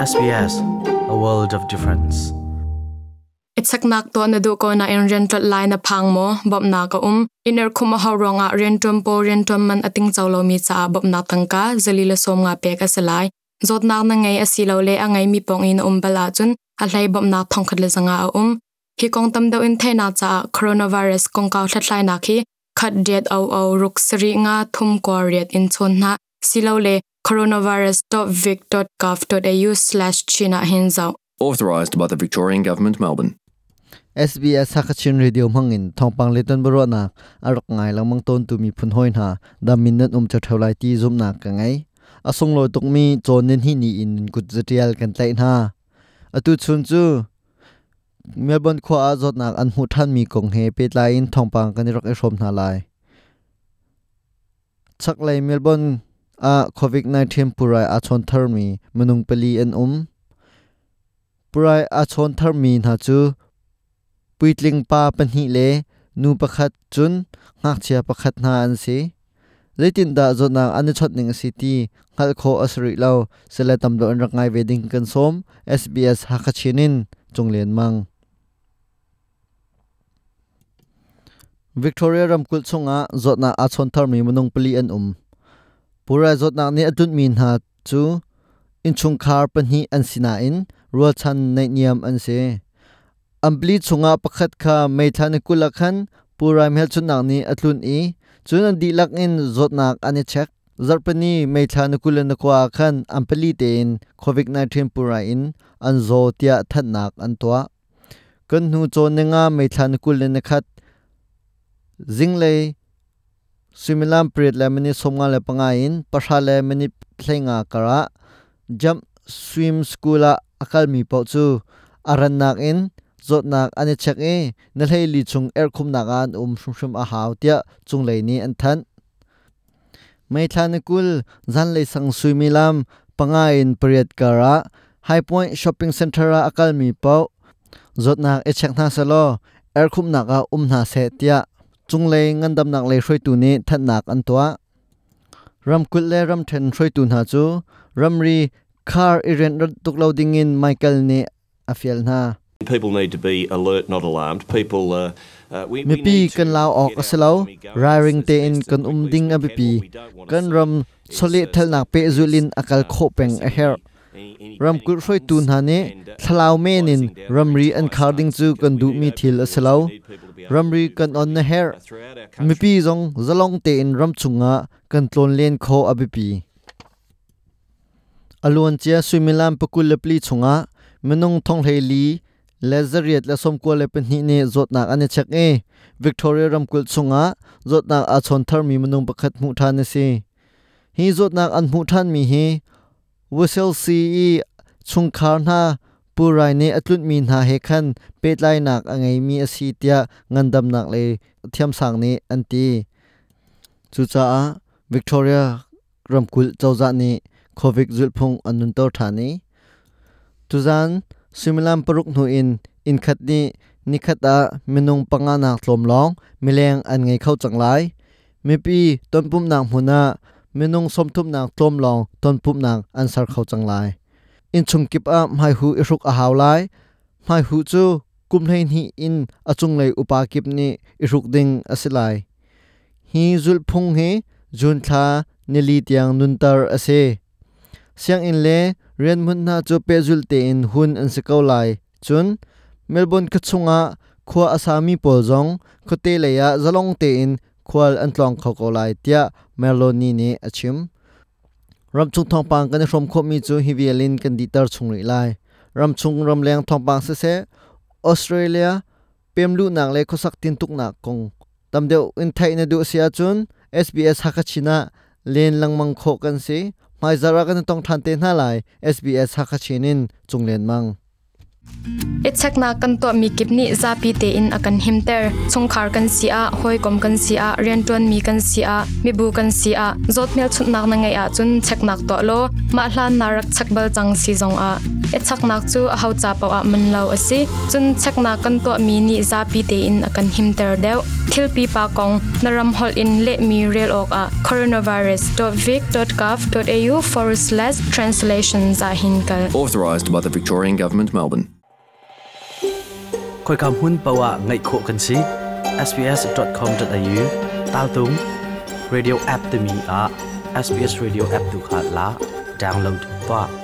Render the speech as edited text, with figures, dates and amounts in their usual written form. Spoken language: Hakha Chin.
SBS, a world of difference. Ichaknak tuah na duh ko nain rian ṭolh lai na phang maw? Bawmhnak a um. Inn erkhum a hauh ruangah rianṭuan pawl rianṭuan man a tingco lomi caah bawmhnak tangka zali le 50 pek a si lai. Zawtnak na ngei asilole a ngeimi pawng i na um bal ahcun a hlei bawmhnak 1500 a um. Hi kong tam deuh in theihnak caah coronavirus kongkau hlathlainak hi khat riat o o ruk sarih nga thum kua riat in chawn hna silole coronavirus.vic.gov.au/chin ah hin zoh. Authorised by the Victorian Government, Melbourne. SBS Hakachin Radio hmangin thawngpang le tonbiaruahnak a rak ngai lengmang tawntu miphun hawi hna dam in nan um ṭheo lai ti zumhnak ka ngei. A sunglawi tukmi cawn nan hi ni in kut zatial kan tlaih hna. Atu chun cu Melbourne khua ah zawtnak an hmuh ṭhanmi kong he pehtlai in thawngpang kan i rak i hrawm hna lai. Chaklei Melbourne ah COVID-19 pulrai aa chawn tharmi minung pali an um. Pulrai aa chawn tharmi hna cu puitling pa pahnih le nu pakhat cun ngakchia pakhat hna an si. Zeitindah zawtnak an i chawnh ning a si ti hngalh khawh a si rih lo. Sile tam deuh an rak ngai ve ding kan sawm. SBS Hakha Chin in Cung Lian Mang. Victoria ramkulh chungah zawtnak aa chawn tharmi minung pali an um. Pulrai zawtnak nih a tlunhmi hna cu innchungkhar pahnih an si nain rualchan naihniam an si. An pali chungah pakhat kha May thla ni 20 ah khan pulrai hmelchunhnak nih a tlunh i cun an dihlak in zawtnak an i check. Zarhpini May thla ni 29 ah khan an pali tein COVID-19 pulrai in an zaw tiah thanhnak an tuah. Kan hnu cawn ninga May thla ni 21 zinglei suimilam pariat le minute 55 in pahra le minute 15 karah Jump Swim School ah a kalmi paoh cu a rannak in zawtnak an i check i na hleili chung erhkhumnak ah an um hrimhrim a hau tiah cunglei nih an thanh. May thla ni 20 zanlei sang suimilam panga in pariat karah High Point Shopping Center ah a kalmi paoh zawtnak i check hna sehlaw erhkhumhnak ah um hna seh tiah cunglei ngandamnak lei hruaitu nih thanhnak an tuah. Ramkulh le ramṭhen hruaitu hna cu ramri khar i rianh tuk lo dingin Michael nih a fial hna. People need to be alert, not alarmed. People, we, we Mipi need to kan lau awk get a si our lo. economy going Ralring as, as tein best kan and um quickly as ding we a can. biapi. What we don't want to Kan see ram is chawlehthalnak pehzulh in a kal khawh peng a pressing herh. any, any panic Ramkulh hruaitu buttons hna nih and, and thlalau men in closing down our ramri an entire khar ding state cu because kan we need duhmi open thil a si borders. lo. We need people to be able to Ramri move kan on na freely herh. throughout our country. Mipi zong zalong tein ram chungah kan tlawn len khawh a biapi. A luancia suimilam 24 chungah minung 4,492 nih zawtnak an i chek i Victoria ramkulh chungah zawtnak aa chawn tharmi minung pakhat hmuh ṭhan a si. Hi zawtnak an hmuh ṭhanmi hi Wusilsi i chungkhar hna pulrai nih a tlunhmi hna he khan pehtlainak a ngeimi a si tiah ngandamnak lei thiamsang nih an ti. Cucaah Victoria ramkulh cozah nih COVID zulhphung an nunter ṭhan i tuzaan suimilam paruk hnu in innkhat nih nikhat ah minung panga nak tlawm lawng mileng an ngei kho cang lai. Mipi tonpumhnak hmun ah minung 30 nak tlawm lawng tonpumhnak an ser kho cang lai. Innchung kip ah hmaihu i hruk a hau lai. Hmaihu cu kum 12 in a cunglei upa kip nih i hruk ding a si lai. Hi zulhphung hi June thla nili tiang nunter a si. Sianginn le rianhmun hna cu pehzulh tein hun an si ko lai. Cun Melbourne khuachung ah khua a sami pawl zong khuate lei ah zalong tein khual an tlawng kho ko lai tiah Meloni nih a chim. Ramchung thawngpang kan i hrawm khawhmi cu hi vial in kan dihter chung rih lai. Ramchung ramleng thawngpang siseh, Australia pemluhnak le khuasak tintuknak kong tam deuh in theih na duh si ahcun SBS Hakachin ah len lengmang khawh kan si. Hmaizarh ah kan i tong ṭhan te hna lai. SBS Hakachin in Cung Lian Mang. I cheknak kan tuahmi kip nih zapi tein a kan himter. Chungkhar kan si ah, hawikom kan si ah, rianṭuanmi kan si ah, mibu kan si ah, zawt hmelchunhnak na ngeih ahcun cheknak tuah law mah hlan na rak chek bal cang si zongah. I cheknak cu aho ca paoh ah man lo a si. Cun cheknak kan tuahmi nih zapi tein a kan himter deuh. Thil pipa kong na ram holh in lehmi rel awkah coronavirus.vic.gov.au/translations ah hin kal. Authorised by the Victorian Government, Melbourne. Khoika hmun paoh ah ngaih khawh kan si. sbs.com.au tal tung radio app timi ah SBS Radio app tu kha la download tuah.